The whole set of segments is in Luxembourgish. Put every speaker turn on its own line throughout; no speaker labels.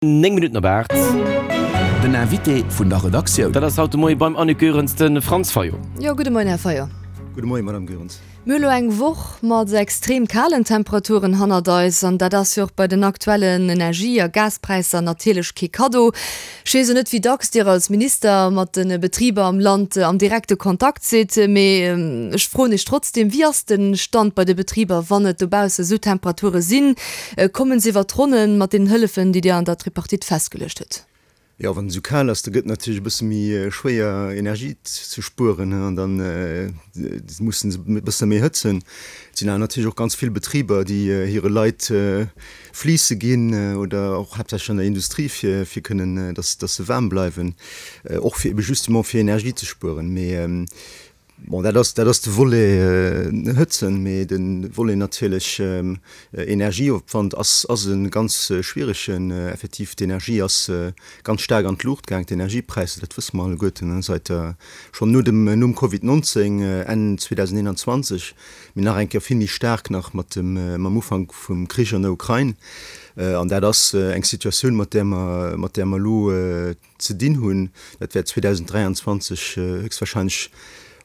9 Minutten op 8.
Den Invité vun der Redaktioun.
Dat ass haut de Moie beim Annick Goerens de Franz Fayot.
Jo, gudde Moien, Här Fayot.
Gudde Moien, Madame Goerens.
Mir hu lo eng Woch mat extrem kalen Temperaturen hannert eis an dat ass jo och bei den aktuellen Energie a Gaspräisser natierlech kee Kaddo. Ech weess jo net, wéi dacks Dir als Minister mat de Betriber am Land am direkte Kontakt sidd, mee ech froen Iech trotzdem, Wéi ass de Stand bei de Betriber, wann et dobausse sou Temperature sinn? Kommen se iwwer d'Ronnen mat deenen Hëllefen, déi Dir an der Tripartite festgeluecht hutt?
Jo, wann et esou kal ass, da gëtt et natierlech e bësse méi schwéier Energie ze spueren an da mussen se e bësse méi hëtzen. Et sinn awer natierlech och ganz vill Betriber, déi hire Leit Fleece ginn oder och haaptsächlech an der Industrie, fir fir kënnen, datt datt se waarm bleiwen, och fir ebe justement fir Energie ze spueren. Mee Bon, dat ass, dat ass de Volet Hëtzen, mee de Volet natierlech Energieopwand ass, ass e ganz schwieregen. Effektiv, d'Energie ass ganz staark an d'Luucht gaang, d'Energiepräisser, dat wësse mer alleguerten, säit der, schonn no dem, nom Covid 19, Enn 2021, mee nach eng Kéier vill méi staark nach mat dem, mam Ufank vum Krich an der Ukrain. An dat ass eng Situatioun, mat där mer, mat där mer elo ze dinn hunn. Dat wäert 2023 héchstwahrscheinlech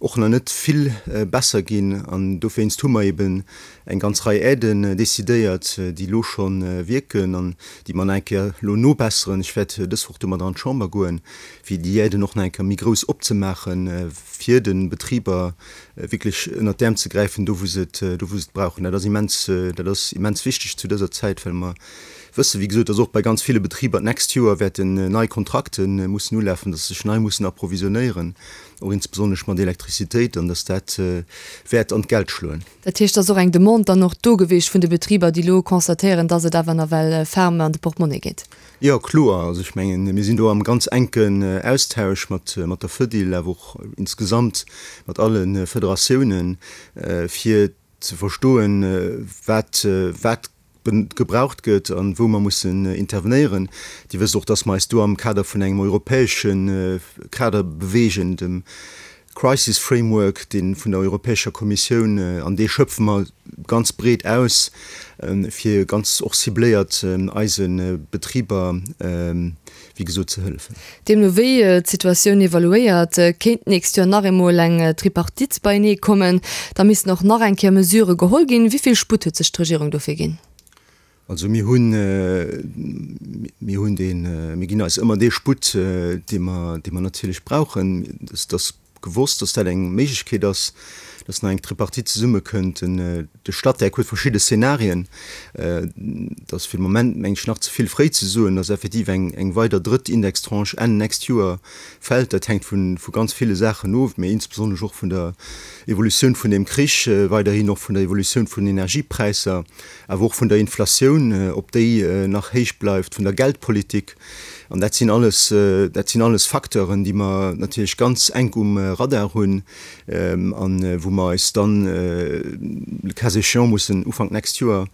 och nach net vill besser ginn an dowéinst hu mer eben eng ganz Rei Aiden decidéiert, déi elo scho wierken an déi mer nach eng Kéier elo nobesseren. Ech wäert dës Woch domadder an d'Chamber goen, fir déi Aiden och nach eng Kéier méi grouss opzemaachen, fir de Betriber wierklech ënnert d'Äerm ze gräifen, do wou se et, do wou se et brauchen. Dat ass immens, dat ass immens wichteg zu dëser Zäit, well mer wëssen, wéi gesot, dass och bei ganz ville Betriber d'nächst Joer wäerten nei Kontrakte mussen ulafen, dass se sech nei mussen approvisionéieren, och insbesonnesch mat Elektrizitéit, an dass dat wäert an d'Geld schloen.
Dat heescht, et ass och eng Demande dann och do gewiescht vun de Betriber, déi elo constatéieren, dass et awer nawell ferme an de Portemonnaie geet?
Jo, kloer. Also ech mengen, mir sinn do am ganz enken Austausch mat der Fedil, awer och insgesamt mat alle Federatiounen, fir ze verstoen, wat wat gebraucht gëtt an wou mer mussen intervenéieren. Dir wësst och, dass mer eis do am Kader vun engem europäesche Kader bewegen, dem Crisis Framework, dee vun der Europäescher Kommissioun, an dee schöpfe mer ganz breet aus, fir ganz och cibléiert eise Betriber, wéi gesot, ze hëllefen.
Deemno wéi d'Situatioun evaluéiert, kéint d'nächst Joer nach eemol eng Tripartite beienee kommen. Da missten och nach eng Kéier Mesurë geholl ginn. Wéi vill Sputt huet sech d'Regierung dofir ginn?
Also mir hunn, mir hunn deen, mir ginn eis ëmmer dee Sputt, dee mer, dee mer natierlech brauchen. Et ass gewosst, dass dat eng Méiglechkeet ass, dass nach eng Tripartite zesummekënnt. De Statec huet verschidde Szenarien. Et ass fir de Moment, meng ech, nach ze vill fréi ze soen, dass effektiv eng weider drëtt Indextranche Enn nächst Joer fält. Dat hänkt vu ganz ville Saachen of, mä insbesonnesch och vun der Evolutioun vun deem Krich, weiderhin och vun der Evolutioun vun den Energiepräisser, awer och vun der Inflatioun, ob déi nach héich bleift, vun der Geldpolitik. An dat sinn alles, dat sinn alles Facteuren, déi mer natierlech ganz enk um Radar hunn a wou mer eis dann, le cas échéant, mussen Ufank d'nächst Joer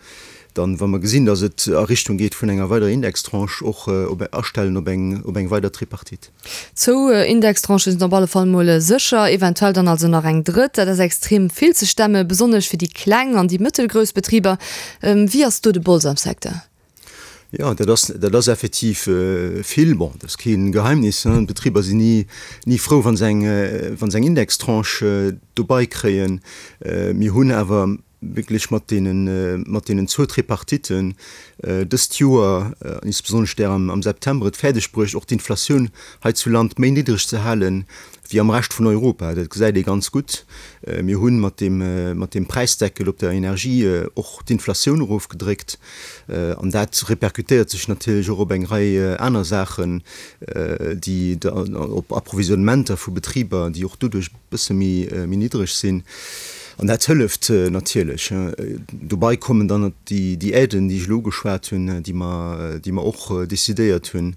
dann, wa mer gesinn, datt et a Richtung geet vun enger weiderer Indextranche, och op astellen op eng, op eng weider Tripartite.
Zwou Indextranchen sinn op alle Fall mol sécher, eventuell dann also nach eng drëtt. Dat ass extrem vill ze stemme, besonnesch fir déi kleng an déi mëttelgrouss Betriber. Wéi ass do de Bols am Secteur?
Jo, dat ass, dat ass effektiv vill. Bon, dat ass kee Geheimnis, hein, d'Betriber sinn ni, ni frou, wa se eng, wa se eng Indextranche dobei kréien. Mir hunn awer wierklech mat deenen, mat deenen zwou Tripartitten dëst Joer, insbesonnesch där am, am September, et fäerdeg bruecht, och d'Inflatioun hei zu Land méi niddreg ze halen wéi am Rescht vun Europa. Dat gesäit ee ganz gutt. Mir hu mat deem, mat deem Präisdeckel op der Energie och d'Inflatioun erofgedréckt. An dat repercutéiert sech natierlech och op eng Rei aner Saachen, déi op Approvisionnementer vu Betriber, déi och doduerch e bësse méi niddreg sinn. An dat hëlleft natierlech. Dobei kommen dann déi Aiden, déi ech elo ugeschwat hunn, déi mer, déi mer och decidéiert hunn.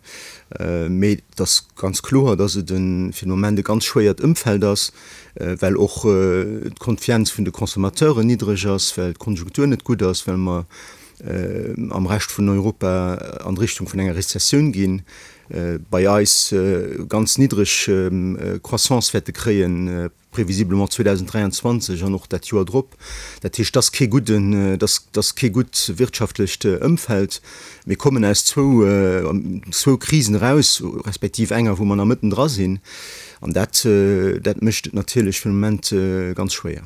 Mee et ass ganz kloer, dass et fir de Moment e ganz schwéiert Ëmfeld ass, well och d'Konfienz vun de Consommateuren niddreg ass, well d'Konjunktur net gutt ass, well mer am Rescht vun Europa an Richtung vun enger Rezessioun ginn, bei eis ganz niddreg Croissance wäerte kréien. prévisiblement 2023 an och dat Joer drop. Dat heescht, et ass kee gudden, et ass kee gutt wirtschaftlecht Ëmfeld. Mir kommen aus zwou, zwou Krisen eraus, respektiv enger, wou mer nach mëtten dra sinn. An dat, dat mécht et natierlech fir de Moment ganz schwéier.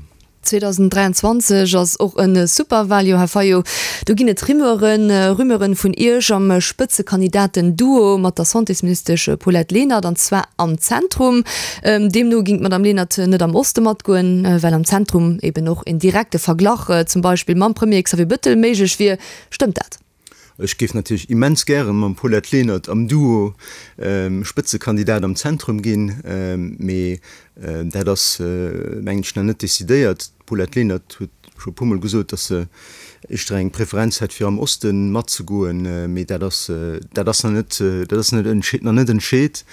2023 ass och e Superwaljoer, Här Fayot. Do ginn et Rumeuren, Rumeuren vun Iech am Spëtzekandidaten-Duo mat der Santésministesch Paulette Lenert, an zwar am Zentrum. Deemno ging d'Madame Lenert net am Oste matgoen, well am Zentrum eben och en direkte Verglach zum Beispill mam Premier Xavier Bettel méiglech wier. Stëmmt dat?
Ech géif natierlech immens gäre mam Paulette Lenert am Duo Spëtzekandidat am Zentrum ginn, mee dat ass, mengen ech, nach net decidéiert. D'Paulette Lenert huet scho e puermol gesot, datt se éischter eng Preferenz hätt, fir am Oste matzegoen, mee dat ass, dat ass nach net, dat ass nach net entscheet.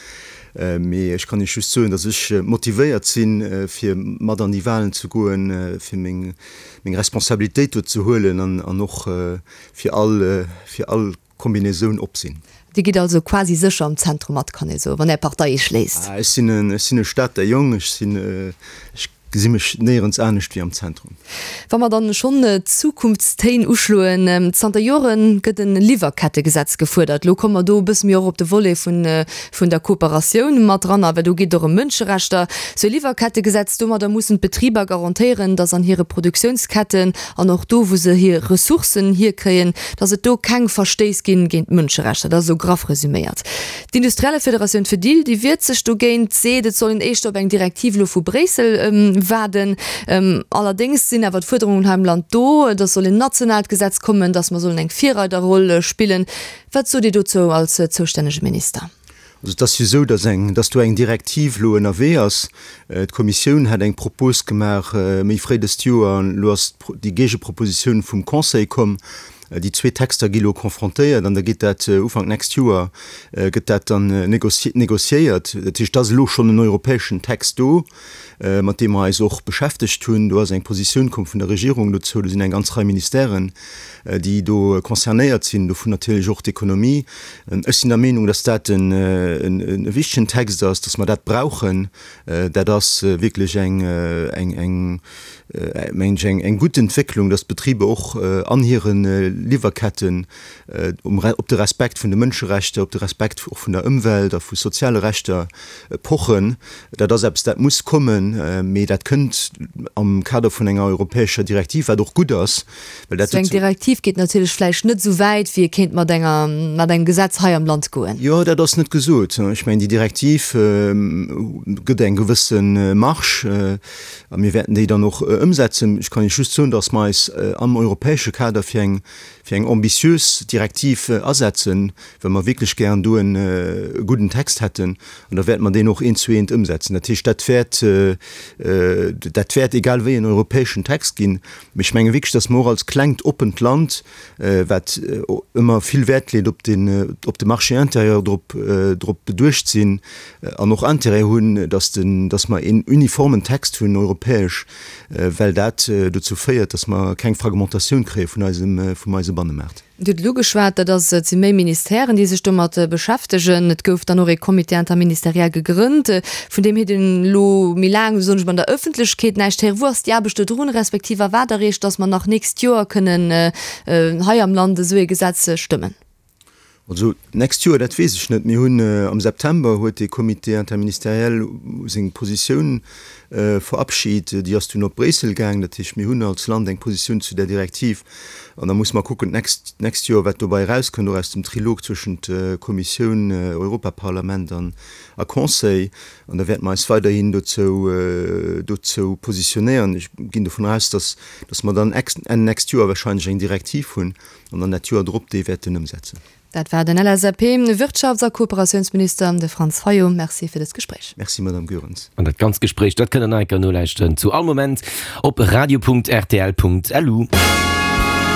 Mee ech kann Iech just soen, datt ech motivéiert sinn, fir mat an déi Walen ze goen, fir meng Responsabilitéit do ze huelen an och fir all, fir all Kombinaisoun op sinn.
Dir gitt also quasi sécher am Zentrum mat, kann ee soen, wann Är Partei Iech léisst?
Ech sinn en, ech sinn e Stater Jong, ech sinn, ech gesi mech néierens anescht wéi am Zentrum.
Wa mer dann schonn d'Zukunftstéin uschloen, Zanter Jore gëtt e Liwwerkettegesetz gefuerdert. Elo komme mer do e bësse méi och op de Volet vun, vun der Kooperatioun mat dran, well do geet et och ëm Mënscherechter. Sou e Liwwerkettegesetz, domadder mussen d'Betriber garantéieren, datt an hire Produktiounsketten an och do wou se hir Ressourcen hierkréien, datt et do keng Verstéiss ginn géint d'Mënscherechter. Dat ass esou graff resüméiert. D'Industriellefederatioun Fedil, déi wiert sech dogéint, seet, et soll een éischter op eng Direktiv elo vu Bréissel waarden. Allerdéngs sinn awer d'Fuerderungen hei am Land do, datt soll en nationaalt Gesetz kommen, datt mer sollen eng Virreiderroll spillen. Wat sot Dir dozou als zoustännege Minister?
Also et ass jo esou, datt eng, datt do eng Direktiv elo ënnerwee ass. D'Kommissioun hat eng Propos gemaach méi fréi dëst Joer an elo ass déi Géigepropositioun vum Conseil komm. Déi zwee Texter gi elo confrontéiert an da geet dat Ufank nächst Joer gëtt dat dann négociéiert. Dat heescht, et ass elo schonn en europäeschen Text do, mat deem mer eis och beschäftegt hunn. Do ass eng Positioun komm vun der Regierung dozou. Do sinn eng ganz Rei Ministèren, déi do concernéiert sinn, dovun natierlech och d'Ekonomie. Ech sinn der Meenung, dass dat e wichtegen Text ass, dass mer dat brauchen. Dat ass wierklech eng, eng, mengen ech, eng gutt Entwécklung, dass d'Betriber och an hire Liwwerketten op de Respekt vun de Mënscherechter, op de Respekt och vun der Ëmwelt a vu soziale Rechter pochen. Dat ass eppes, dat muss kommen, mee dat kënnt am Kader vun enger europäescher Direktiv, wat och gutt ass,
well dat. Esou eng Direktiv geet natierlech vläicht net esou wäit, wéi ee kéint mat enger, mat engem Gesetz hei am Land goen.
Jo, dat ass net gesot. Ech mengen, déi Direktiv gëtt eng gewësse Marge a mir wäerten déi dann och ëmsetzen. Ech kann Iech just soen, datt mer eis am europäesche Kader fir eng, fir eng ambitiös Direktiv asetzen, well mer wierklech gären do e gudden Text hätten, an da wäerte mer deen och eent zu eent ëmsetzen. Dat heescht, dat wäert, dat wäert egal wéi en europäeschen Text ginn. Mee ech menge wierklech, datt mer och als klengt, oppent Land, wat ëmmer vill Wäert leet op den, op de Marché intérieur, drop, drop beduecht sinn an och Intérêt hunn, datt den, datt mer een uniformen Text hunn, europäesch, well dat dozou féiert, datt mer keng Fragmentatioun kréie vun eisem, vum eise Bannemaart.
Dir hutt et ugeschwat, dat ass, et si méi Ministèren, déi sech domat beschäftegen. Et gouf dann och ee Comité interministériel gegrënnt, vun deem huet een elo méi laang, soen ech mol, an der Ëffentlechkeet näischt héieren. Wou ass déi Aarbecht do drun, respektiv a wat erreecht, datt mer nach nächst Joer kënnen hei am Land esou ee Gesetz stëmmen?
Also d'nächst Joer, dat weess ech net. Mir hunn am September huet dee Comité interministériel seng Positioun verabschit. Déi ass dunn op Bréissel gaang. Dat heescht, mir hunn als Land eng Positioun zu där Direktiv. An da musse mer kucken d'nächst, d'nächst Joer, wat dobei erauskënnt, och aus dem Trilog zwëschent Kommissioun, Europaparlament an a Conseil. An da wäerte mer eis weiderhin dozou, dozou positionéieren. Ech ginn dovun aus, dass, dass mer dann Enn nächst Joer wahrscheinlech eng Direktiv hunn. an dann dat Joer drop déi wäerten ëmsetzen.
Dat war den LSAP-Wirtschafts a Kooperatiounsminister, de Franz Fayot. Merci fir dëst Gespréich.
Merci, Madame Goerens.
An dat ganzt Gespréich, dat kënnt der nach eng Kéier nolauschteren zu all Moment op radio.rtl.lu.